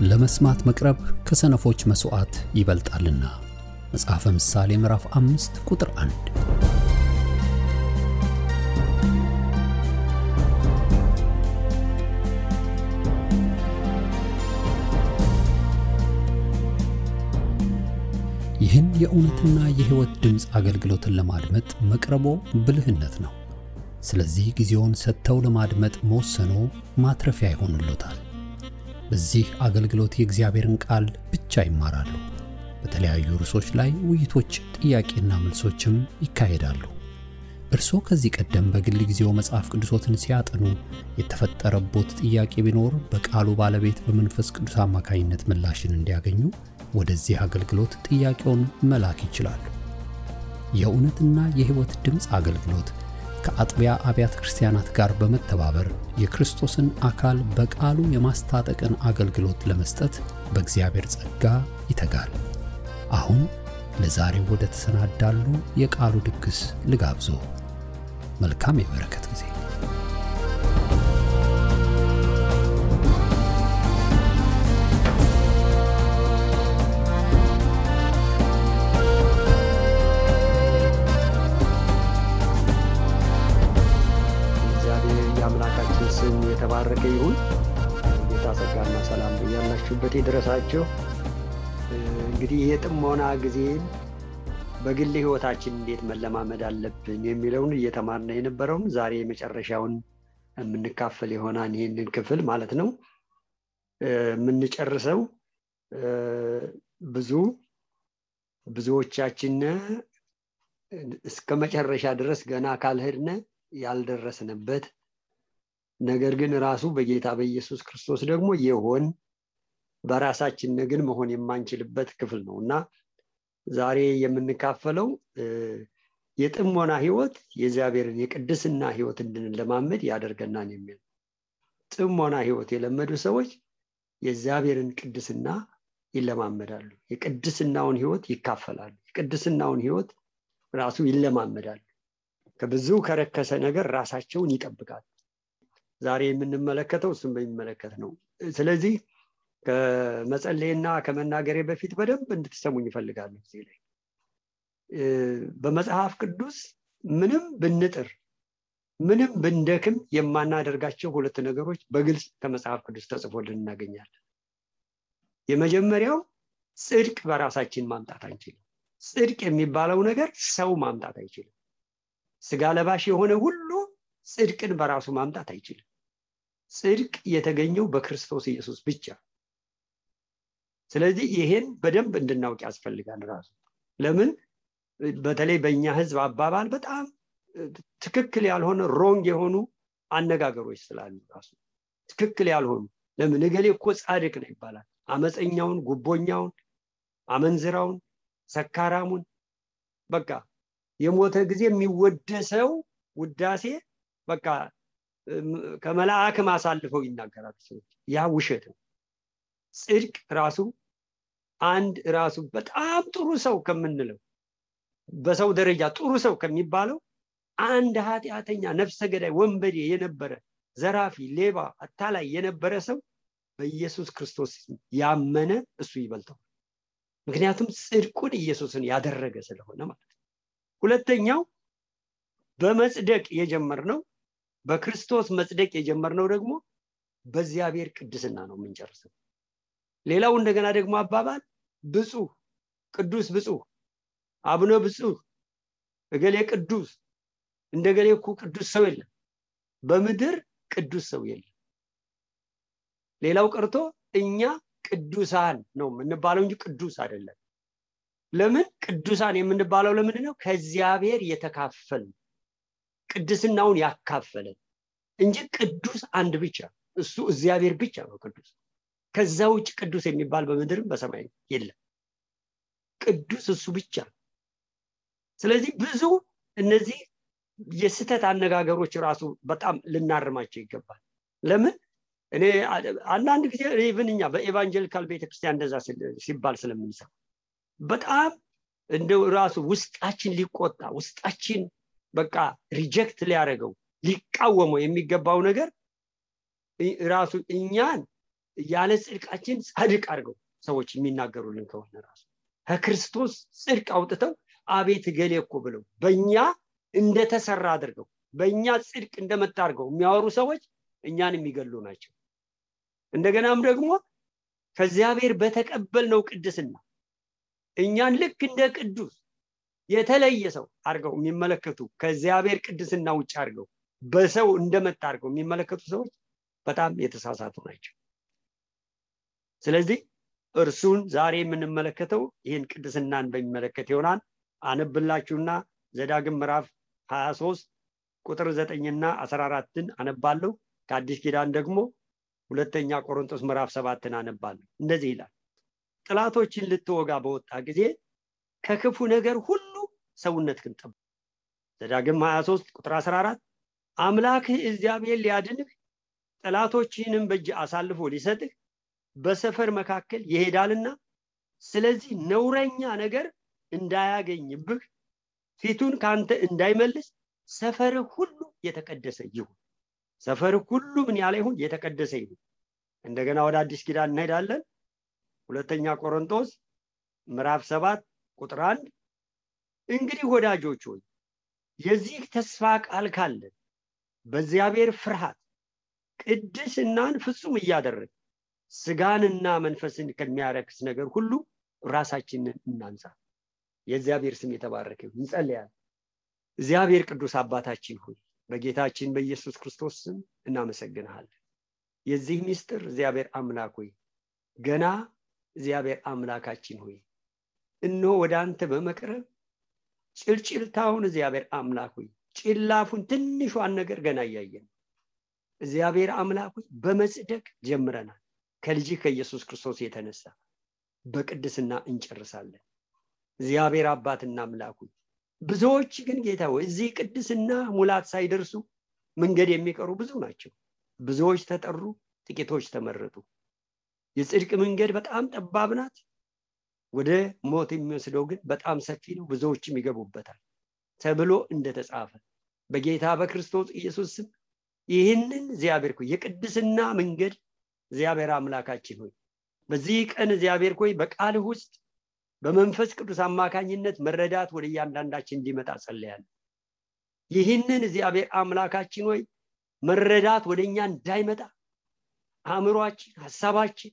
ለመስማት መቅረብ ከሰነፎች መስዋዕት ይበልጣልና። መጽሐፈ ምሳሌ ምዕራፍ 5 ቁጥር 1። ይህን የእውነትና የሕይወት ድምጽ አገልግሎትን ለማድመጥ መቅረቦ ብልህነት ነው። ስለዚህ ጊዜውን ሰጥተው ለማድመጥ መወሰኖ ማትረፊያ ይሆንልዎታል። በዚህ አገልግሎት የእግዚአብሔርን ቃል ብቻ ይማራሉ። በተለያዩ ርዕሶች ላይ ውይይቶች፣ ጥያቄና መልሶችም ይካሄዳሉ። እርስዎ ከዚህ ቀደም በግል ጊዜው መጽሐፍ ቅዱሶትን ሲያጠኑ የተፈጠረቦት ጥያቄ ቢኖር በቃሉ ባለቤት በመንፈስ ቅዱስ አማካኝነት ምላሽን እንዲያገኙ ወደዚህ አገልግሎት ጥያቄውን መላክ ይችላሉ። የእውነትና የሕይወት ድምጽ አገልግሎት ከአጥቢያ አብያተ ክርስቲያናት ጋር በመተባበር የክርስቶስን አካል በቃሉ የማስታጠቅን አገልግሎት ለመስጠት በእግዚአብሔር ጸጋ ይተጋል። አሁን ለዛሬው ወደ ተሰናዳሉ የቃሉ ድግስ ልጋብዞ። መልካም የበረከት ጊዜ። የተባረከ ይሁን። ጌታ ጸጋና ሰላም በያላችሁበት ይድረሳችሁ። እንግዲህ የጥሞና ጊዜን በግል ሕይወታችን እንዴት መለማመድ አለብን የሚለውን እየተማርነ የነበረውን ዛሬ የመጨረሻውን የምንካፈል ይሆናል። ይሄንን ክፍል ማለት ነው የምንጨርሰው። ብዙዎቻችን እስከ መጨረሻ ድረስ ገና ካልሄድነ ያልደረስንበት ነገር ግን ራሱ በጌታ በኢየሱስ ክርስቶስ ደግሞ የሆን በራሳችን ግን መሆን የማንችልበት ክፍል ነውና ዛሬ የምንካፈለው የጥሞና ሕይወት የእግዚአብሔርን የቅድስና ሕይወት እንድንለማመድ ያደርገናል የሚል። ጥሞና ሕይወት የለመዱ ሰዎች የእግዚአብሔርን ቅድስና ይለማመዳሉ፣ የቅድስናውን ሕይወት ይካፈላሉ፣ የቅድስናውን ሕይወት ራሱ ይለማመዳሉ፣ ከብዙ ከረከሰ ነገር ራሳቸውን ይጠብቃሉ። ዛሬ የምንመለከተው እሱን በሚመለከት ነው። ስለዚህ ከመጸለይና ከመናገሬ በፊት በደንብ እንድትሰሙኝ እፈልጋለሁ። እዚህ ላይ በመጽሐፍ ቅዱስ ምንም ብንጥር ምንም ብንደክም የማናደርጋቸው ሁለት ነገሮች በግልጽ ከመጽሐፍ ቅዱስ ተጽፎልን እናገኛለን። የመጀመሪያው ጽድቅ በራሳችን ማምጣት አንችልም። ጽድቅ የሚባለው ነገር ሰው ማምጣት አይችልም። ስጋ ለባሽ የሆነ ሁሉ ጽድቅን በራሱ ማምጣት አይችልም። ጽድቅ የተገኘው በክርስቶስ ኢየሱስ ብቻ። ስለዚህ ይሄን በደንብ እንድናውቅ ያስፈልጋል። ራሱ ለምን በተለይ በእኛ ሕዝብ አባባል በጣም ትክክል ያልሆነ ሮንግ የሆኑ አነጋገሮች ስላሉ ራሱ ትክክል ያልሆኑ ለምን እገሌ እኮ ጻድቅ ነው ይባላል። አመፀኛውን፣ ጉቦኛውን፣ አመንዝራውን፣ ሰካራሙን በቃ የሞተ ጊዜ የሚወደሰው ውዳሴ በቃ ከመላእክ ማሳልፈው ይናገራሉ ሰዎች። ያ ውሸት ነው። ጽድቅ ራሱ አንድ ራሱ በጣም ጥሩ ሰው ከምንለው በሰው ደረጃ ጥሩ ሰው ከሚባለው አንድ ኃጢአተኛ፣ ነፍሰ ገዳይ፣ ወንበዴ የነበረ ዘራፊ፣ ሌባ፣ አታላይ የነበረ ሰው በኢየሱስ ክርስቶስ ያመነ እሱ ይበልጠው። ምክንያቱም ጽድቁን ኢየሱስን ያደረገ ስለሆነ ማለት ነው። ሁለተኛው በመጽደቅ የጀመርነው በክርስቶስ መጽደቅ የጀመርነው ደግሞ በእግዚአብሔር ቅድስና ነው የምንጨርሰው። ሌላው እንደገና ደግሞ አባባል ብፁዕ፣ ቅዱስ ብፁዕ፣ አቡነ ብፁዕ፣ እገሌ ቅዱስ፣ እንደገሌ እኮ ቅዱስ ሰው የለም፣ በምድር ቅዱስ ሰው የለም። ሌላው ቀርቶ እኛ ቅዱሳን ነው የምንባለው እንጂ ቅዱስ አይደለም። ለምን ቅዱሳን የምንባለው? ለምንድን ነው? ከእግዚአብሔር የተካፈልን ቅድስናውን ያካፈለን እንጂ ቅዱስ አንድ ብቻ እሱ እግዚአብሔር ብቻ ነው ቅዱስ። ከዛ ውጭ ቅዱስ የሚባል በምድርም በሰማይ የለም። ቅዱስ እሱ ብቻ። ስለዚህ ብዙ እነዚህ የስተት አነጋገሮች ራሱ በጣም ልናርማቸው ይገባል። ለምን እኔ አንዳንድ ጊዜ ኢቭንኛ በኤቫንጀሊካል ቤተክርስቲያን እንደዛ ሲባል ስለምንሰማ በጣም እንደው ራሱ ውስጣችን ሊቆጣ ውስጣችን በቃ ሪጀክት ሊያደርገው ሊቃወመው የሚገባው ነገር ራሱ እኛን ያለ ጽድቃችን ጻድቅ አድርገው ሰዎች የሚናገሩልን ከሆነ ራሱ ከክርስቶስ ጽድቅ አውጥተው አቤት ገሌ እኮ ብለው በእኛ እንደተሰራ አድርገው በእኛ ጽድቅ እንደመጣርገው የሚያወሩ ሰዎች እኛን የሚገሉ ናቸው። እንደገናም ደግሞ ከእግዚአብሔር በተቀበልነው ቅድስና እኛን ልክ እንደ ቅዱስ የተለየ ሰው አድርገው የሚመለከቱ ከእግዚአብሔር ቅድስና ውጭ አድርገው በሰው እንደመጣርገው የሚመለከቱ ሰዎች በጣም የተሳሳቱ ናቸው። ስለዚህ እርሱን ዛሬ የምንመለከተው ይህን ቅድስናን በሚመለከት ይሆናል። አነብላችሁና ዘዳግም ምዕራፍ 23 ቁጥር 9ና 14ን አነባለሁ። ከአዲስ ኪዳን ደግሞ ሁለተኛ ቆሮንቶስ ምዕራፍ 7ን አነባለሁ። እንደዚህ ይላል፣ ጥላቶችን ልትወጋ በወጣ ጊዜ ከክፉ ነገር ሁሉ ሰውነትህን ጠብቅ። ዘዳግም 23 ቁጥር 14 አምላክህ እግዚአብሔር ሊያድንህ ጥላቶችህንም በእጅ አሳልፎ ሊሰጥህ በሰፈር መካከል ይሄዳልና ስለዚህ ነውረኛ ነገር እንዳያገኝብህ ፊቱን ካንተ እንዳይመልስ ሰፈርህ ሁሉ የተቀደሰ ይሁን። ሰፈርህ ሁሉ ምን ያለ ይሁን? የተቀደሰ ይሁን። እንደገና ወደ አዲስ ኪዳን እንሄዳለን። ሁለተኛ ቆሮንቶስ ምዕራፍ 7 ቁጥር 1 እንግዲህ ወዳጆች ሆይ የዚህ ተስፋ ቃል ካለን በእግዚአብሔር ፍርሃት ቅድስናን ፍጹም እያደረግን ስጋንና መንፈስን ከሚያረክስ ነገር ሁሉ ራሳችንን እናንጻ። የእግዚአብሔር ስም የተባረከ ይሁን። እንጸልያለን። እግዚአብሔር ቅዱስ አባታችን ሆይ በጌታችን በኢየሱስ ክርስቶስ ስም እናመሰግንሃለን። የዚህ ምስጢር እግዚአብሔር አምላክ ሆይ ገና እግዚአብሔር አምላካችን ሆይ እነሆ ወደ አንተ በመቅረብ ጭልጭልታውን እግዚአብሔር አምላክ ሆይ ጭላፉን ትንሿን ነገር ገና እያየን እግዚአብሔር አምላክ ሆይ በመጽደቅ ጀምረናል። ከልጅ ከኢየሱስ ክርስቶስ የተነሳ በቅድስና እንጨርሳለን። እግዚአብሔር አባትና አምላክ ሆይ ብዙዎች ግን ጌታ ሆይ እዚህ ቅድስና ሙላት ሳይደርሱ መንገድ የሚቀሩ ብዙ ናቸው። ብዙዎች ተጠሩ፣ ጥቂቶች ተመረጡ። የጽድቅ መንገድ በጣም ጠባብ ናት፣ ወደ ሞት የሚወስደው ግን በጣም ሰፊ ነው፣ ብዙዎችም ይገቡበታል ተብሎ እንደተጻፈ በጌታ በክርስቶስ ኢየሱስ ስም ይህንን እግዚአብሔር ሆይ የቅድስና መንገድ እግዚአብሔር አምላካችን ሆይ በዚህ ቀን እግዚአብሔር ሆይ በቃልህ ውስጥ በመንፈስ ቅዱስ አማካኝነት መረዳት ወደ እያንዳንዳችን እንዲመጣ ጸልያለሁ። ይህንን እግዚአብሔር አምላካችን ሆይ መረዳት ወደኛ እንዳይመጣ አእምሮአችን፣ ሐሳባችን፣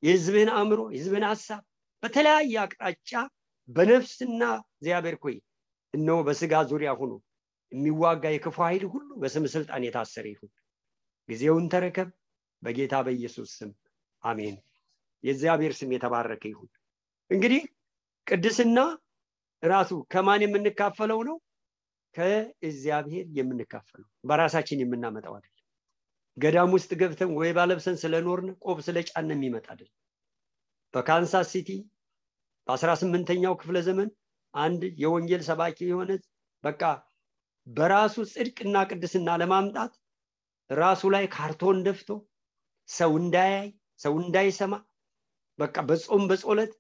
የሕዝብን አእምሮ፣ የሕዝብን ሐሳብ በተለያየ አቅጣጫ በነፍስና እግዚአብሔር ሆይ እነሆ በስጋ ዙሪያ ሆኖ የሚዋጋ የክፉ ኃይል ሁሉ በስም ስልጣን የታሰረ ይሁን። ጊዜውን ተረከብ በጌታ በኢየሱስ ስም አሜን። የእግዚአብሔር ስም የተባረከ ይሁን። እንግዲህ ቅድስና ራሱ ከማን የምንካፈለው ነው? ከእግዚአብሔር የምንካፈለው፣ በራሳችን የምናመጣው አይደለም። ገዳም ውስጥ ገብተን ወይ ባለብሰን ስለኖርን ቆብ ስለጫን የሚመጣ አይደለም። በካንሳስ ሲቲ በ18ኛው ክፍለ ዘመን አንድ የወንጌል ሰባኪ የሆነ በቃ በራሱ ጽድቅና ቅድስና ለማምጣት ራሱ ላይ ካርቶን ደፍቶ ሰው እንዳያይ ሰው እንዳይሰማ በቃ በጾም በጸሎት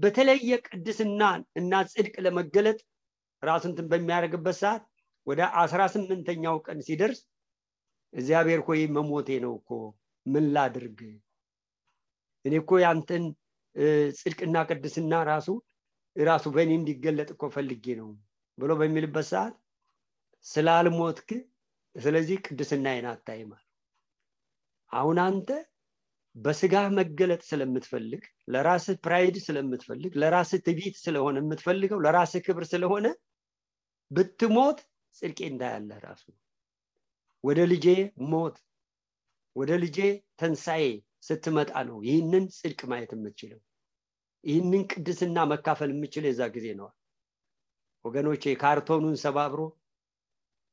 በተለየ ቅድስና እና ጽድቅ ለመገለጥ ራሱን በሚያደርግበት ሰዓት ወደ 18ኛው ቀን ሲደርስ እግዚአብሔር ሆይ መሞቴ ነው እኮ ምን ላድርግ? እኔ እኮ ያንተን ጽድቅና ቅድስና ራሱ በእኔ እንዲገለጥ እኮ ፈልጌ ነው ብሎ በሚልበት ሰዓት ስላልሞትክ ስለዚህ ቅድስናዬን አታይም። አሁን አንተ በስጋ መገለጥ ስለምትፈልግ፣ ለራስህ ፕራይድ ስለምትፈልግ፣ ለራስህ ትዕቢት ስለሆነ የምትፈልገው፣ ለራስህ ክብር ስለሆነ ብትሞት ጽድቄ እንዳያለህ ራሱ ወደ ልጄ ሞት ወደ ልጄ ተንሳኤ ስትመጣ ነው ይህንን ጽድቅ ማየት የምትችለው፣ ይህንን ቅድስና መካፈል የምትችለው የዛ ጊዜ ነው። ወገኖቼ ካርቶኑን ሰባብሮ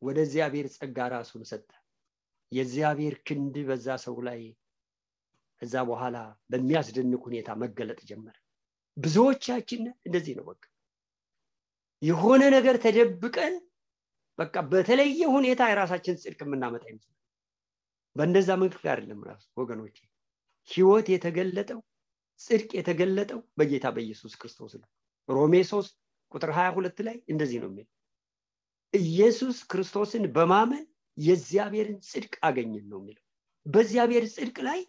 ወደ እግዚአብሔር ጸጋ ራሱን ሰጠ። የእግዚአብሔር ክንድ በዛ ሰው ላይ እዛ በኋላ በሚያስደንቅ ሁኔታ መገለጥ ጀመረ። ብዙዎቻችን እንደዚህ ነው። በቃ የሆነ ነገር ተደብቀን በቃ በተለየ ሁኔታ የራሳችን ጽድቅ የምናመጣ ይመስላል። በእንደዛ መንገድ አይደለም ራሱ ወገኖቼ። ሕይወት የተገለጠው ጽድቅ የተገለጠው በጌታ በኢየሱስ ክርስቶስ ነው። ሮሜ 3 ቁጥር 22 ላይ እንደዚህ ነው የሚለው፣ ኢየሱስ ክርስቶስን በማመን የእግዚአብሔርን ጽድቅ አገኘን ነው የሚለው። በእግዚአብሔር ጽድቅ ላይ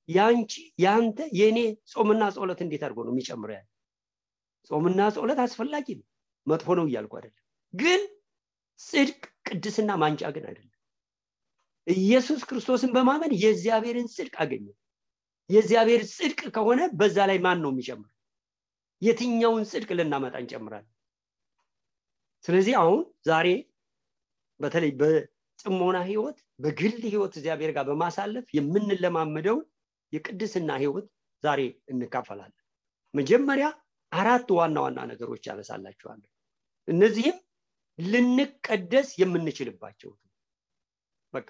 ያንቺ ያንተ የኔ ጾምና ጸሎት እንዴት አድርጎ ነው የሚጨምረው? ያለ ጾምና ጸሎት አስፈላጊ ነው፣ መጥፎ ነው እያልኩ አይደለም። ግን ጽድቅ ቅድስና ማንጫ ግን አይደለም። ኢየሱስ ክርስቶስን በማመን የእግዚአብሔርን ጽድቅ አገኘ። የእግዚአብሔር ጽድቅ ከሆነ በዛ ላይ ማን ነው የሚጨምረው? የትኛውን ጽድቅ ልናመጣ እንጨምራለን? ስለዚህ አሁን ዛሬ በተለይ በጽሞና ህይወት በግል ህይወት እግዚአብሔር ጋር በማሳለፍ የምንለማመደው የቅድስና ህይወት ዛሬ እንካፈላለን። መጀመሪያ 4 ዋና ዋና ነገሮች ያነሳላችኋለሁ። እነዚህም ልንቀደስ የምንችልባቸው በቃ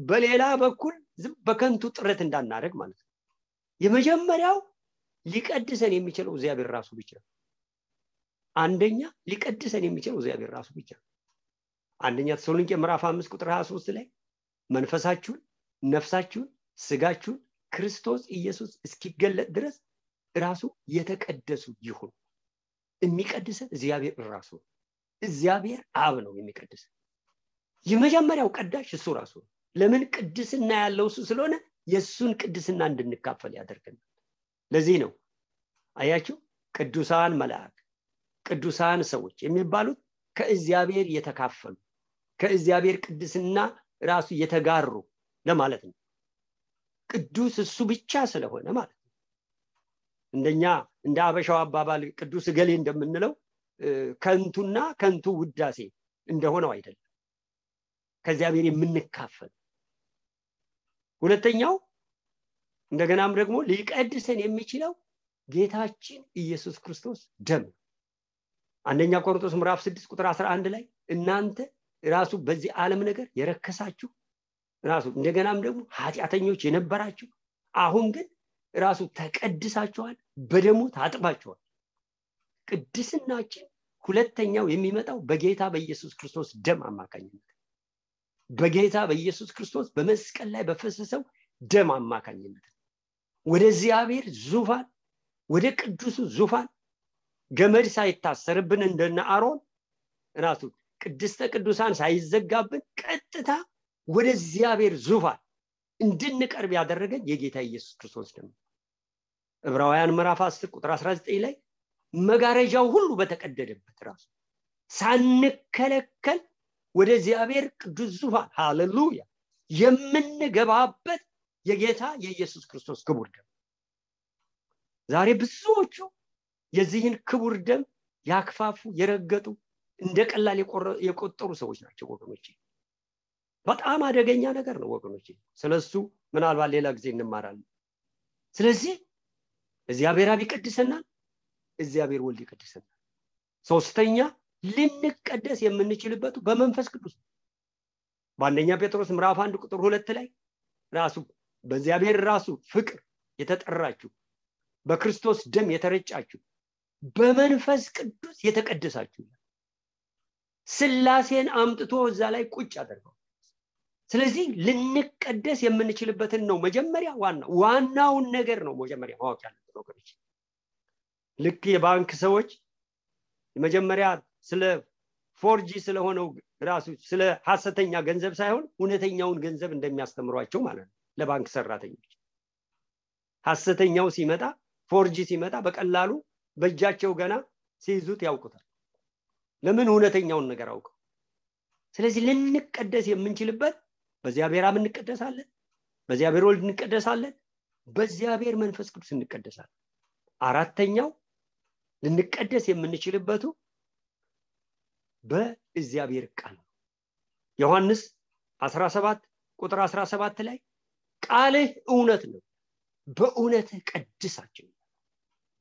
በሌላ በኩል በከንቱ ጥረት እንዳናደርግ ማለት ነው። የመጀመሪያው ሊቀድሰን የሚችለው እግዚአብሔር ራሱ ብቻ ነው። አንደኛ ሊቀድሰን የሚችለው እግዚአብሔር ራሱ ብቻ ነው። አንደኛ ተሰሎንቄ ምዕራፍ 5 ቁጥር 23 ላይ መንፈሳችሁን፣ ነፍሳችሁን፣ ስጋችሁን ክርስቶስ ኢየሱስ እስኪገለጥ ድረስ ራሱ የተቀደሱ ይሁን። የሚቀድሰን እግዚአብሔር ራሱ ነው። እግዚአብሔር አብ ነው የሚቀድሰን። የመጀመሪያው ቀዳሽ እሱ ራሱ ነው። ለምን? ቅድስና ያለው እሱ ስለሆነ የሱን ቅድስና እንድንካፈል ያደርገናል። ለዚህ ነው አያችሁ ቅዱሳን መላእክት፣ ቅዱሳን ሰዎች የሚባሉት ከእግዚአብሔር የተካፈሉ ከእግዚአብሔር ቅድስና ራሱ የተጋሩ ለማለት ነው። ቅዱስ እሱ ብቻ ስለሆነ ማለት ነው። እንደኛ እንደ አበሻው አባባል ቅዱስ ገሌ እንደምንለው ከንቱና ከንቱ ውዳሴ እንደሆነው አይደለም። ከእግዚአብሔር የምንካፈል። ሁለተኛው እንደገናም ደግሞ ሊቀድሰን የሚችለው ጌታችን ኢየሱስ ክርስቶስ ደም። አንደኛ ቆሮንቶስ ምዕራፍ 6 ቁጥር 11 ላይ እናንተ ራሱ በዚህ ዓለም ነገር የረከሳችሁ ራሱ እንደገናም ደግሞ ኃጢአተኞች የነበራችሁ አሁን ግን ራሱ ተቀድሳችኋል፣ በደሙ ታጥባችኋል። ቅድስናችን ሁለተኛው የሚመጣው በጌታ በኢየሱስ ክርስቶስ ደም አማካኝነት፣ በጌታ በኢየሱስ ክርስቶስ በመስቀል ላይ በፈሰሰው ደም አማካኝነት ወደ እግዚአብሔር ዙፋን ወደ ቅዱሱ ዙፋን ገመድ ሳይታሰርብን እንደነ አሮን ራሱ ቅድስተ ቅዱሳን ሳይዘጋብን ቀጥታ ወደ እግዚአብሔር ዙፋን እንድንቀርብ ያደረገን የጌታ ኢየሱስ ክርስቶስ ደም። ዕብራውያን ምዕራፍ 10 ቁጥር 19 ላይ መጋረጃው ሁሉ በተቀደደበት ራሱ ሳንከለከል ወደ እግዚአብሔር ቅዱስ ዙፋን ሃሌሉያ የምንገባበት የጌታ የኢየሱስ ክርስቶስ ክቡር ደም። ዛሬ ብዙዎቹ የዚህን ክቡር ደም ያክፋፉ የረገጡ እንደ ቀላል የቆጠሩ ሰዎች ናቸው ወገኖቼ። በጣም አደገኛ ነገር ነው ወገኖቼ። ስለሱ ምናልባት ሌላ ጊዜ እንማራለን። ስለዚህ እግዚአብሔር አብ ይቀድሰናል፣ እግዚአብሔር ወልድ ይቀድሰናል። ሶስተኛ ልንቀደስ የምንችልበት በመንፈስ ቅዱስ። በአንደኛ ጴጥሮስ ምዕራፍ 1 ቁጥር 2 ላይ ራሱ በእግዚአብሔር ራሱ ፍቅር የተጠራችሁ በክርስቶስ ደም የተረጫችሁ በመንፈስ ቅዱስ የተቀደሳችሁ ስላሴን አምጥቶ እዛ ላይ ቁጭ አደረገው። ስለዚህ ልንቀደስ የምንችልበትን ነው መጀመሪያ ዋናውን ነገር ነው መጀመሪያ ማወቅ ያለብን ወገኖች። ልክ የባንክ ሰዎች መጀመሪያ ስለ ፎርጂ ስለሆነው ራሱ ስለ ሐሰተኛ ገንዘብ ሳይሆን እውነተኛውን ገንዘብ እንደሚያስተምሯቸው ማለት ነው ለባንክ ሰራተኞች። ሐሰተኛው ሲመጣ ፎርጂ ሲመጣ በቀላሉ በእጃቸው ገና ሲይዙት ያውቁታል። ለምን? እውነተኛውን ነገር አውቀው። ስለዚህ ልንቀደስ የምንችልበት በእግዚአብሔር አብ እንቀደሳለን፣ በእግዚአብሔር ወልድ እንቀደሳለን፣ በእግዚአብሔር መንፈስ ቅዱስ እንቀደሳለን። አራተኛው ልንቀደስ የምንችልበቱ በእግዚአብሔር ቃል ነው። ዮሐንስ 17 ቁጥር 17 ላይ ቃልህ እውነት ነው፣ በእውነትህ ቀድሳቸው።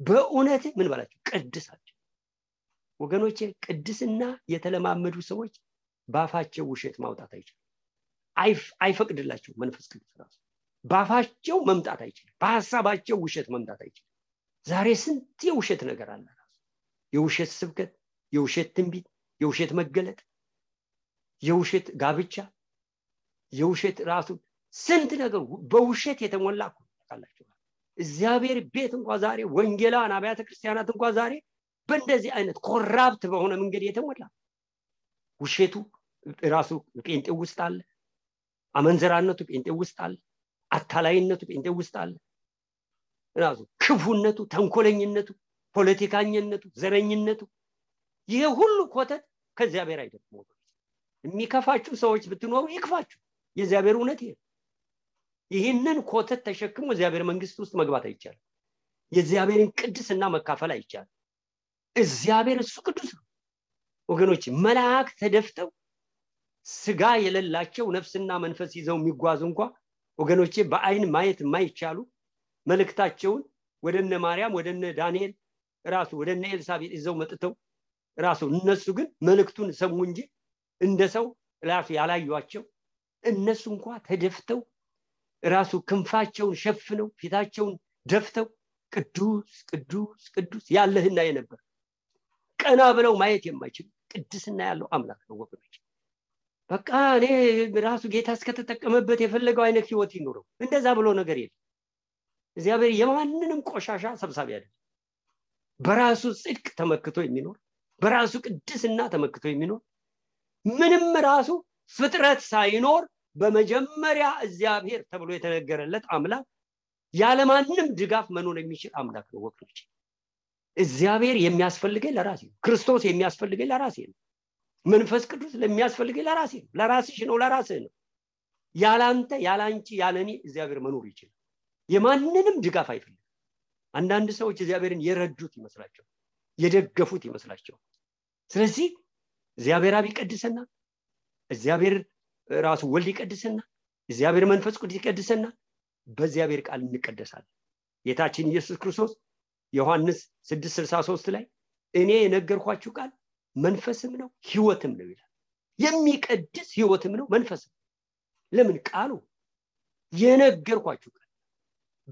በእውነትህ ምን ባላችሁ? ቀድሳቸው። ወገኖቼ ቅድስና የተለማመዱ ሰዎች ባፋቸው ውሸት ማውጣት አይችሉም። አይፈቅድላቸው መንፈስ ቅዱስ ራሱ ባፋቸው መምጣት አይችልም። በሐሳባቸው ውሸት መምጣት አይችልም። ዛሬ ስንት የውሸት ነገር አለ ራሱ የውሸት ስብከት፣ የውሸት ትንቢት፣ የውሸት መገለጥ፣ የውሸት ጋብቻ፣ የውሸት ራሱ ስንት ነገር በውሸት የተሞላ ታውቃላችሁ። እግዚአብሔር ቤት እንኳን ዛሬ ወንጌላውያን አብያተ ክርስቲያናት እንኳን ዛሬ በእንደዚህ አይነት ኮራፕት በሆነ መንገድ የተሞላ ውሸቱ ራሱ ጴንጤ ውስጥ አለ፣ አመንዘራነቱ ጴንጤ ውስጥ አለ፣ አታላይነቱ ጴንጤ ውስጥ አለ። ራሱ ክፉነቱ፣ ተንኮለኝነቱ፣ ፖለቲካኝነቱ፣ ዘረኝነቱ ይሄ ሁሉ ኮተት ከእግዚአብሔር አይደለም ወገኖች። የሚከፋችሁ ሰዎች ብትኖሩ ይክፋችሁ፣ የእግዚአብሔር እውነት ይሄ። ይህንን ኮተት ተሸክሞ እግዚአብሔር መንግስት ውስጥ መግባት አይቻልም። የእግዚአብሔርን ቅድስና መካፈል አይቻልም። እግዚአብሔር እሱ ቅዱስ ነው ወገኖች። መላእክት ተደፍተው ስጋ የሌላቸው ነፍስና መንፈስ ይዘው የሚጓዙ እንኳን ወገኖቼ በአይን ማየት የማይቻሉ መልእክታቸውን ወደነ ማርያም ወደነ ዳንኤል ራሱ ወደነ ኤልሳቤጥ ይዘው መጥተው ራሱ እነሱ ግን መልእክቱን ሰሙ እንጂ እንደሰው ራሱ ያላዩአቸው እነሱ እንኳን ተደፍተው ራሱ ክንፋቸውን ሸፍነው ፊታቸውን ደፍተው ቅዱስ ቅዱስ ቅዱስ ያለህና የነበር ቀና ብለው ማየት የማይችል ቅድስና ያለው አምላክ ነው ወገኖች። በቃ እኔ ራሱ ጌታ እስከተጠቀመበት የፈለገው አይነት ህይወት ይኖረው እንደዛ ብሎ ነገር የለም። እግዚአብሔር የማንንም ቆሻሻ ሰብሳቢ አይደለም። በራሱ ጽድቅ ተመክቶ የሚኖር በራሱ ቅድስና ተመክቶ የሚኖር ምንም ራሱ ፍጥረት ሳይኖር በመጀመሪያ እግዚአብሔር ተብሎ የተነገረለት አምላክ ያለማንም ድጋፍ መኖር የሚችል አምላክ ነው ወገኖች። እግዚአብሔር የሚያስፈልገኝ ለራሴ ነው። ክርስቶስ የሚያስፈልገኝ ለራሴ ነው። መንፈስ ቅዱስ ለሚያስፈልገኝ ለራሴ ነው። ለራስሽ ነው፣ ለራስህ ነው። ያላንተ ያላንቺ ያለኔ እግዚአብሔር መኖር ይችላል። የማንንም ድጋፍ አይፈልግም። አንዳንድ ሰዎች እግዚአብሔርን የረዱት ይመስላቸው፣ የደገፉት ይመስላቸው። ስለዚህ እግዚአብሔር አብ ይቀድሰና፣ እግዚአብሔር ራሱ ወልድ ይቀድሰና፣ እግዚአብሔር መንፈስ ቅዱስ ይቀድሰና፣ በእግዚአብሔር ቃል እንቀደሳለን። ጌታችን ኢየሱስ ክርስቶስ ዮሐንስ 6:63 ላይ እኔ የነገርኳችሁ ቃል መንፈስም ነው ህይወትም ነው ይላል። የሚቀድስ ህይወትም ነው መንፈስም። ለምን? ቃሉ የነገርኳችሁ ቃል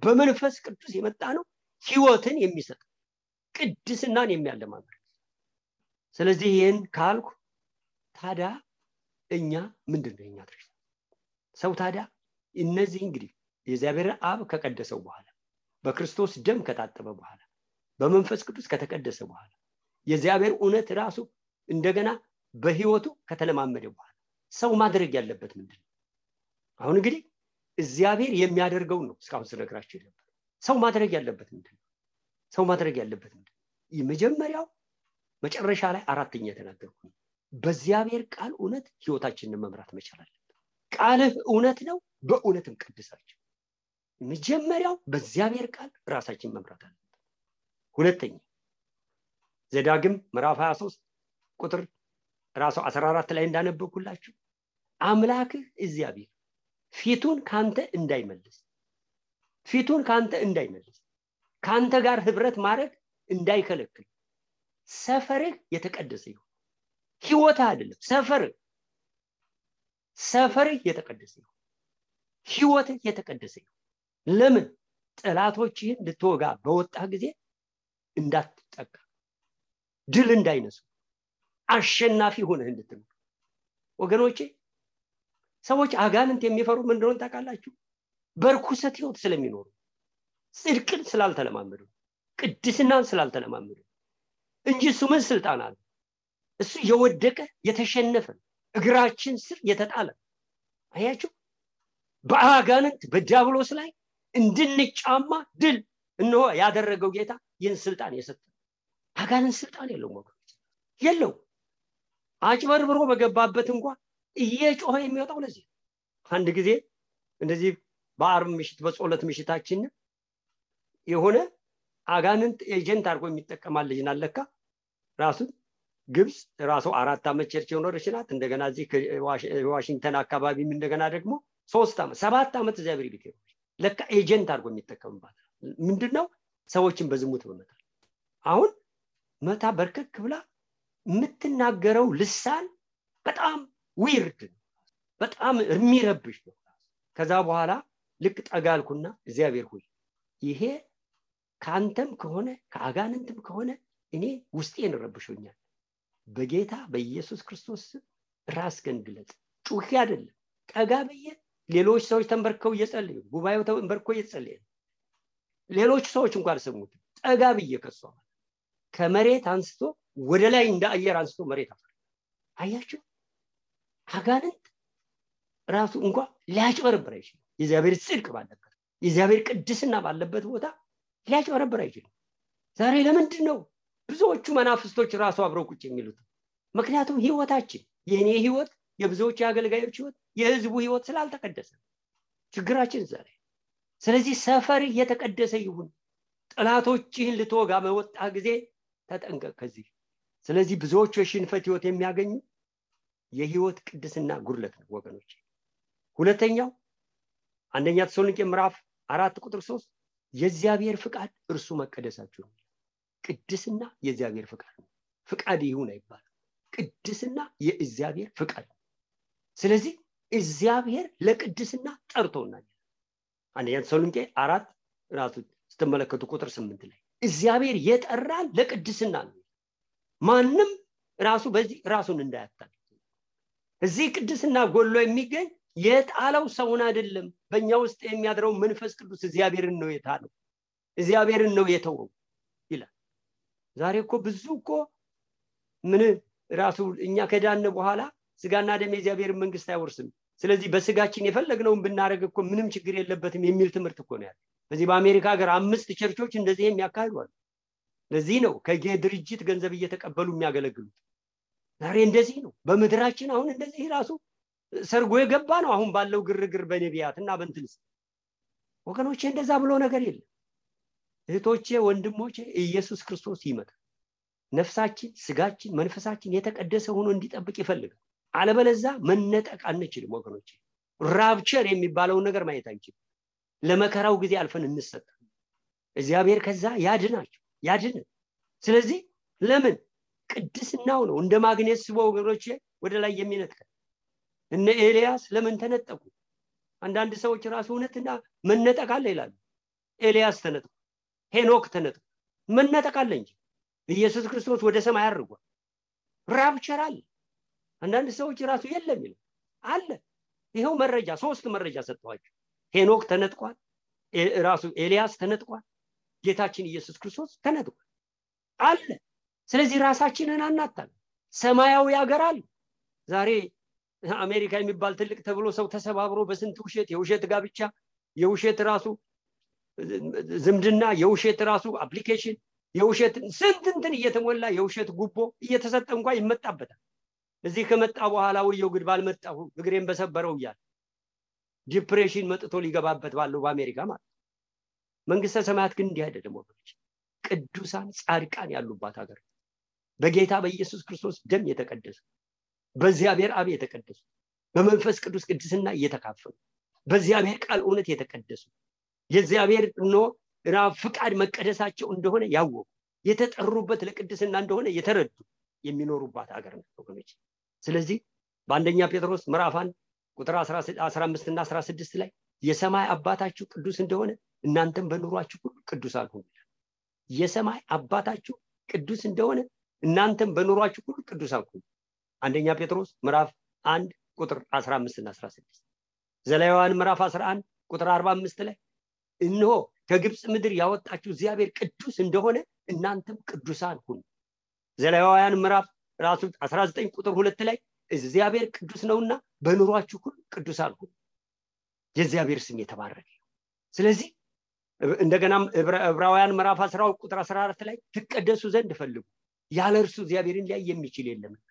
በመንፈስ ቅዱስ የመጣ ነው፣ ህይወትን የሚሰጥ ቅድስናን የሚያለማምድ። ስለዚህ ይሄን ካልኩ ታዲያ እኛ ምንድነው የኛ ድርሻ? ሰው ታዲያ እነዚህ እንግዲህ የእግዚአብሔር አብ ከቀደሰው በኋላ በክርስቶስ ደም ከታጠበ በኋላ በመንፈስ ቅዱስ ከተቀደሰ በኋላ የእግዚአብሔር እውነት ራሱ እንደገና በህይወቱ ከተለማመደ በኋላ ሰው ማድረግ ያለበት ምንድነው? አሁን እንግዲህ እግዚአብሔር የሚያደርገው ነው እስካሁን ስለግራችሁ ነበር። ሰው ማድረግ ያለበት ምንድነው? ሰው ማድረግ ያለበት ምንድነው? የመጀመሪያው መጨረሻ ላይ አራተኛ ተናገርኩ። በእግዚአብሔር ቃል እውነት ህይወታችንን መምራት መቻል አለበት። ቃልህ እውነት ነው፣ በእውነትም ቀድሳችሁ። መጀመሪያው በእግዚአብሔር ቃል ራሳችን መምራት አለበት። ሁለተኛ ዘዳግም ምዕራፍ 23 ቁጥር ራሱ 14 ላይ እንዳነበብኩላችሁ አምላክህ እግዚአብሔር ፊቱን ካንተ እንዳይመልስ ካንተ ጋር ህብረት ማድረግ እንዳይከለክል ሰፈርህ የተቀደሰ ይሁን። ህይወትህ አይደለም ሰፈርህ የተቀደሰ ይሁን፣ ህይወትህ የተቀደሰ ይሁን። ለምን? ጠላቶችህን ልትወጋ በወጣ ጊዜ እንዳትጠቃ፣ ድል እንዳይነሱ፣ አሸናፊ ሆነህ እንድትኖር። ወገኖቼ ሰዎች አጋንንት የሚፈሩ ምን እንደሆነ ታውቃላችሁ? በርኩሰት ህይወት ስለሚኖሩ፣ ጽድቅን ስላልተለማመዱ፣ ቅድስናን ስላልተለማመዱ እንጂ እሱ ምን ስልጣን አለ? እሱ የወደቀ የተሸነፈ እግራችን ስር የተጣለ። አያችሁ? በአጋንንት በዲያብሎስ ላይ እንድንጫማ ድል እነሆ ያደረገው ጌታ ይህን ስልጣን የሰጠ። አጋንንት ስልጣን የለውም ወገኖች፣ የለው። አጭበርብሮ በገባበት እንኳን እየጮኸ የሚወጣው ለዚህ። አንድ ጊዜ እንደዚህ በአርብ ምሽት በጸሎት ምሽታችን የሆነ አጋንንት ኤጀንት አድርጎ የሚጠቀማል ልጅ ናለካ ራሱ ግብጽ ራሱ 4 ዓመት ቸርች የኖረች ናት። እንደገና እዚህ ዋሽንግተን አካባቢም እንደገና ደግሞ 3 ዓመት 7 ዓመት እግዚአብሔር ቤት ነው ለካ ኤጀንት አድርጎ የሚጠቀምባት። ምንድነው? ሰዎችን በዝሙት በመታል። አሁን መታ በርከክ ብላ የምትናገረው ልሳን በጣም ዊርድ ነው፣ በጣም የሚረብሽ ነው። ከዛ በኋላ ልክ ጠጋልኩና እግዚአብሔር ሆይ ይሄ ካንተም ከሆነ ከአጋንንትም ከሆነ እኔ ውስጤን ረብሾኛል፣ በጌታ በኢየሱስ ክርስቶስ ራስህን ግለጽ። ጩኺ አይደለም፣ ጠጋ ብዬ ሌሎች ሰዎች ተንበርከው እየጸለዩ ጉባኤው ተንበርኮ እየጸለየ ሌሎች ሰዎች እንኳን ሰሙት። ጠጋ ብዬ ከሷ ከመሬት አንስቶ ወደ ላይ እንደ አየር አንስቶ መሬት አፈር። አያችሁ? አጋንንት ራሱ እንኳን ሊያጭበረብር አይችልም። የእግዚአብሔር ጽድቅ ባለበት የእግዚአብሔር ቅድስና ባለበት ቦታ ሊያጭበረብር አይችልም። ዛሬ ለምንድን ነው ብዙዎቹ መናፍስቶች ራሱ አብረው ቁጭ የሚሉት? ምክንያቱም ህይወታችን የኔ ህይወት የብዙዎች የአገልጋዮች ህይወት የህዝቡ ህይወት ስላልተቀደሰ ችግራችን ዛሬ። ስለዚህ ሰፈር እየተቀደሰ ይሁን። ጠላቶችህን ልትወጋ በወጣ ጊዜ ተጠንቀቅ ከዚህ። ስለዚህ ብዙዎቹ የሽንፈት ህይወት የሚያገኙ የህይወት ቅድስና ጉድለት ነው ወገኖች። ሁለተኛው አንደኛ ተሰሎንቄ ምዕራፍ 4:3 የእግዚአብሔር ፍቃድ እርሱ መቀደሳችሁ ነው። ቅድስና የእግዚአብሔር ፍቃድ ነው። ፍቃድ ይሁን አይባልም። ቅድስና የእግዚአብሔር ፍቃድ ነው። ስለዚህ እግዚአብሔር ለቅድስና ጠርቶናል። አንደኛ ተሰሎንቄ 4 ራሱ ስትመለከቱ ቁጥር 8 ላይ እግዚአብሔር የጠራን ለቅድስና ነው። ማንም ራሱ በዚህ ራሱን እንዳያታል። እዚህ ቅድስና ጎሎ የሚገኝ የጣለው ሰውን አይደለም። በእኛ ውስጥ የሚያድረው መንፈስ ቅዱስ እግዚአብሔርን ነው የጣለው፣ እግዚአብሔርን ነው የተወው ይላል። ዛሬ እኮ ብዙ እኮ ምን ራሱ እኛ ከዳነ በኋላ ስጋና ደም የእግዚአብሔርን መንግስት አይወርስም፣ ስለዚህ በስጋችን የፈለግነውን ብናረግ እኮ ምንም ችግር የለበትም የሚል ትምህርት እኮ ነው ያለው። በዚህ በአሜሪካ ሀገር 5 ቸርቾች እንደዚህ የሚያካሂዱ አሉ። ለዚህ ነው ከድርጅት ገንዘብ እየተቀበሉ የሚያገለግሉት። ዛሬ እንደዚህ ነው በመድራችን። አሁን እንደዚህ ራሱ ሰርጎ የገባ ነው አሁን ባለው ግርግር በነቢያትና በእንትንስ። ወገኖቼ እንደዛ ብሎ ነገር የለም። እህቶቼ ወንድሞቼ ኢየሱስ ክርስቶስ ይመጣል። ነፍሳችን ስጋችን መንፈሳችን የተቀደሰ ሆኖ እንዲጠብቅ ይፈልጋል። አለበለዚያ መነጠቅ አንችልም ወገኖቼ። ራፕቸር የሚባለው ነገር ማየት አንችልም። ለመከራው ጊዜ አልፈን እንሰጣለን። እግዚአብሔር ከዛ ያድን። ስለዚህ ለምን ቅድስናው ነው እንደ ማግኔት ስቦ ወገኖቼ ወደ ላይ የሚነጥቀው። እነ ኤልያስ ለምን ተነጠቁ? አንዳንድ ሰዎች ራሱ እውነትና መነጠቅ አለ ይላሉ። ኤልያስ ተነጥቋል፣ ሄኖክ ተነጥቋል። መነጠቅ አለ እንጂ ኢየሱስ ክርስቶስ ወደ ሰማይ አርጓል። ራፕቸር አለ። አንዳንድ ሰዎች ራሱ የለም ይላል አለ። ይሄው መረጃ 3 መረጃ ሰጥቷቸው ሄኖክ ተነጥቋል፣ ራሱ ኤልያስ ተነጥቋል፣ ጌታችን ኢየሱስ ክርስቶስ ተነጥቋል አለ። ስለዚህ ራሳችንን አናታል። ሰማያዊ ሀገር አለ። ዛሬ አሜሪካ የሚባል ትልቅ ተብሎ ሰው ተሰባብሮ በስንት ውሸት፣ የውሸት ጋብቻ፣ የውሸት ራሱ ዝምድና፣ የውሸት ራሱ አፕሊኬሽን፣ የውሸት ስንት እየተሞላ የውሸት ጉቦ እየተሰጠ እንኳን ይመጣበታል። እዚህ ከመጣ በኋላ ወየው ግድ ባልመጣሁ እግሬን በሰበረው ይላል። ዲፕሬሽን መጥቶ ሊገባበት ባለው በአሜሪካ ማለት። መንግስተ ሰማያት ግን እንዲህ አይደለም ወገኖች። ቅዱሳን ጻድቃን ያሉባት ሀገር፣ በጌታ በኢየሱስ ክርስቶስ ደም የተቀደሱ፣ በእግዚአብሔር አብ የተቀደሱ፣ በመንፈስ ቅዱስ ቅድስና እየተካፈሉ፣ በእግዚአብሔር ቃል እውነት የተቀደሱ፣ የእግዚአብሔር ፍቃድ መቀደሳቸው እንደሆነ ያወቁ፣ የተጠሩበት ለቅድስና እንደሆነ የተረዱ የሚኖሩባት ሀገር ነው ወገኖች። ስለዚህ በአንደኛ ጴጥሮስ ምዕራፍ 1 ቁጥር 15 እና 16 ላይ የሰማይ አባታችሁ ቅዱስ እንደሆነ እናንተም በኑሯችሁ ሁሉ ቅዱሳን ሁኑ። የሰማይ አባታችሁ ቅዱስ እንደሆነ እናንተም በኑሯችሁ ሁሉ ቅዱሳን ሁኑ። አንደኛ ጴጥሮስ ምዕራፍ 1 ቁጥር 15 እና 16። ዘሌዋውያን ምዕራፍ 11 ቁጥር 45 ላይ እነሆ ከግብጽ ምድር ያወጣችሁ እግዚአብሔር ቅዱስ እንደሆነ እናንተም ቅዱሳን ሁኑ። ዘሌዋውያን ምዕራፍ ራሱ 19 ቁጥር 2 ላይ እግዚአብሔር ቅዱስ ነውና በኑሯችሁ ሁሉ ቅዱሳን ሁኑ። የእግዚአብሔር ስም የተባረከ። ስለዚህ እንደገናም ዕብራውያን ምዕራፍ 10 ቁጥር 14 ላይ ትቀደሱ ዘንድ ፈልጉ፣ ያለ እርሱ እግዚአብሔርን ሊያይ የሚችል የለምና።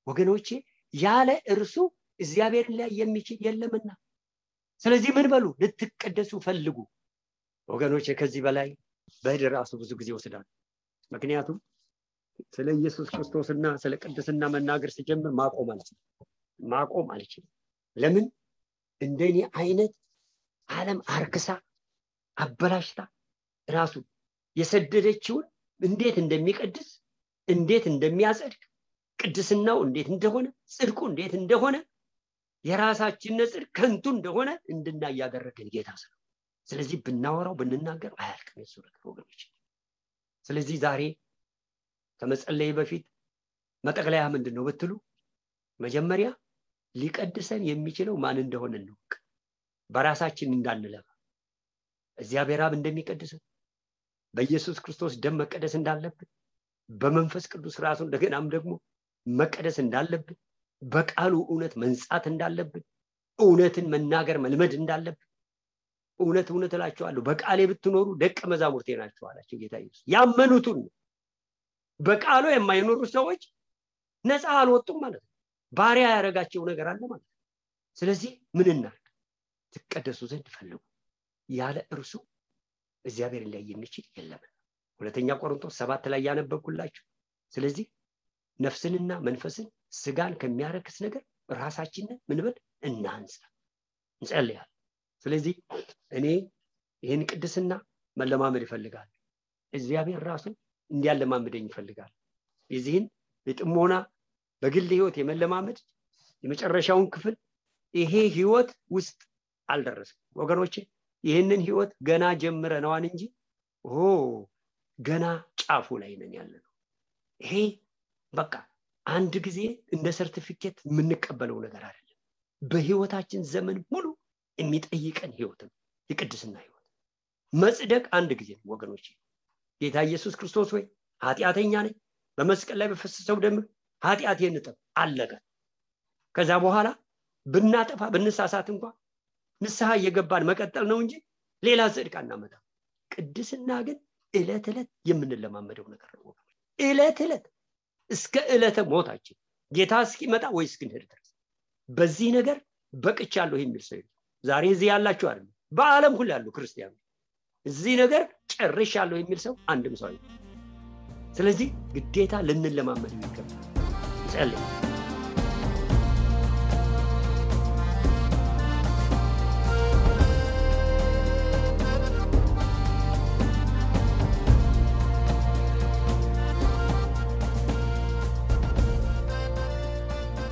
ወገኖቼ ያለ እርሱ እግዚአብሔርን ሊያይ የሚችል የለምና። ስለዚህ ምን በሉ? ልትቀደሱ ፈልጉ። ወገኖቼ ከዚህ በላይ በድር ራሱ ብዙ ጊዜ ወስዳል። ምክንያቱም ስለ ኢየሱስ ክርስቶስና ስለ ቅድስና መናገር ሲጀምር ማቆም አልችልም። ለምን? እንደኔ አይነት ዓለም አርክሳ አበላሽታ ራሱ የሰደደችውን እንዴት እንደሚቀድስ፣ እንዴት እንደሚያጸድቅ፣ ቅድስናው እንዴት እንደሆነ፣ ጽድቁ እንዴት እንደሆነ፣ የራሳችን ጽድቅ ከንቱ እንደሆነ እንድናይ ያደረገን ጌታ ነው። ስለዚህ ብናወራው ብንናገር አያልቅም የሱ ነገር ወገኖች። ስለዚህ ዛሬ ከመጸለይ በፊት መጠቅለያ ምንድነው ብትሉ፣ መጀመሪያ ሊቀድሰን የሚችለው ማን እንደሆነ እንወቅ። በራሳችን እንዳንለፋ፣ እግዚአብሔር አብ እንደሚቀድሰን፣ በኢየሱስ ክርስቶስ ደም መቀደስ እንዳለብን፣ በመንፈስ ቅዱስ ራሱ እንደገናም ደግሞ መቀደስ እንዳለብን፣ በቃሉ እውነት መንጻት እንዳለብን፣ እውነትን መናገር መልመድ እንዳለብን፣ እውነት እውነት እላችኋለሁ በቃሌ ብትኖሩ ደቀ መዛሙርቴ ናችሁ አላቸው ጌታ ኢየሱስ። ያመኑትን በቃሉ የማይኖሩ ሰዎች ነፃ አልወጡም ማለት ነው። ባሪያ ያደረጋቸው ነገር አለ ማለት ነው። ስለዚህ ምን እናድርግ? ትቀደሱ ዘንድ ፈልጉ፣ ያለ እርሱ እግዚአብሔር ላይ የሚችል የለም። ሁለተኛ ቆሮንቶስ 7 ላይ ያነበብኩላችሁ። ስለዚህ ነፍስንና መንፈስን ስጋን ከሚያረክስ ነገር ራሳችንን ምን በል እናንጻ፣ እንጸልያለን። ስለዚህ እኔ ይህን ቅድስና መለማመድ ይፈልጋል። እግዚአብሔር ራሱ እንዲያለማመደኝ ይፈልጋል። የዚህን የጥሞና በግል ህይወት የመለማመድ የመጨረሻውን ክፍል ይሄ ህይወት ውስጥ አልደረስም ወገኖቼ። ይህንን ህይወት ገና ጀምረናል እንጂ ገና ጫፉ ላይ ነን ያለነው። ይሄ በቃ አንድ ጊዜ እንደ ሰርቲፊኬት የምንቀበለው ነገር አይደለም። በህይወታችን ዘመን ሙሉ የሚጠይቀን ህይወት ነው የቅድስና ህይወት። መጽደቅ አንድ ጊዜ ነው ወገኖቼ። ጌታ ኢየሱስ ክርስቶስ ወይ ኃጢአተኛ ነኝ፣ በመስቀል ላይ በፈሰሰው ደም ኃጢአቴን እጠብ፣ አለቀ። ከዛ በኋላ ብናጠፋ ብንሳሳት እንኳን ንስሐ እየገባን መቀጠል ነው እንጂ ሌላ ጽድቅ አናመጣም። ቅድስና ግን ዕለት ዕለት የምንለማመደው ነገር ነው ወገኖቼ። ዕለት ዕለት እስከ ዕለተ ሞታችን ጌታ እስኪመጣ ወይ እስክንሄድ ድረስ በዚህ ነገር በቅቻለሁ የሚል ሰው ዛሬ እዚህ ያላችሁ አይደል፣ በዓለም ሁሉ ያሉ ክርስቲያኖች እዚህ ነገር ጨርሻለሁ የሚል ሰው አንድም ሰው አይደለም። ስለዚህ ግዴታ ልንለማመድ ይገባል። ጸልይ።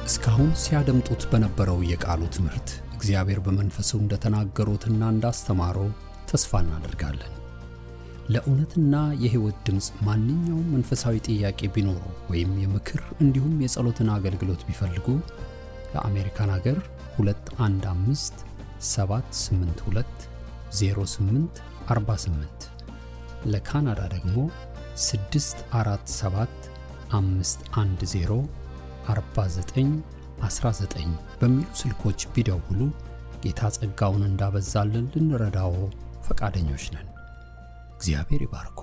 እስካሁን ሲያደምጡት በነበረው የቃሉ ትምህርት እግዚአብሔር በመንፈሱ እንደተናገሩትና እንዳስተማረው ተስፋ እናደርጋለን። ለእውነትና የሕይወት ድምጽ ማንኛውም መንፈሳዊ ጥያቄ ቢኖሩ ወይም የምክር እንዲሁም የጸሎትን አገልግሎት ቢፈልጉ ለአሜሪካን ሀገር 215 782 0848 ለካናዳ ደግሞ 647 510 4919 በሚሉ ስልኮች ቢደውሉ ጌታ ጸጋውን እንዳበዛልን ልንረዳው ፈቃደኞች ነን። እግዚአብሔር ይባርኩ።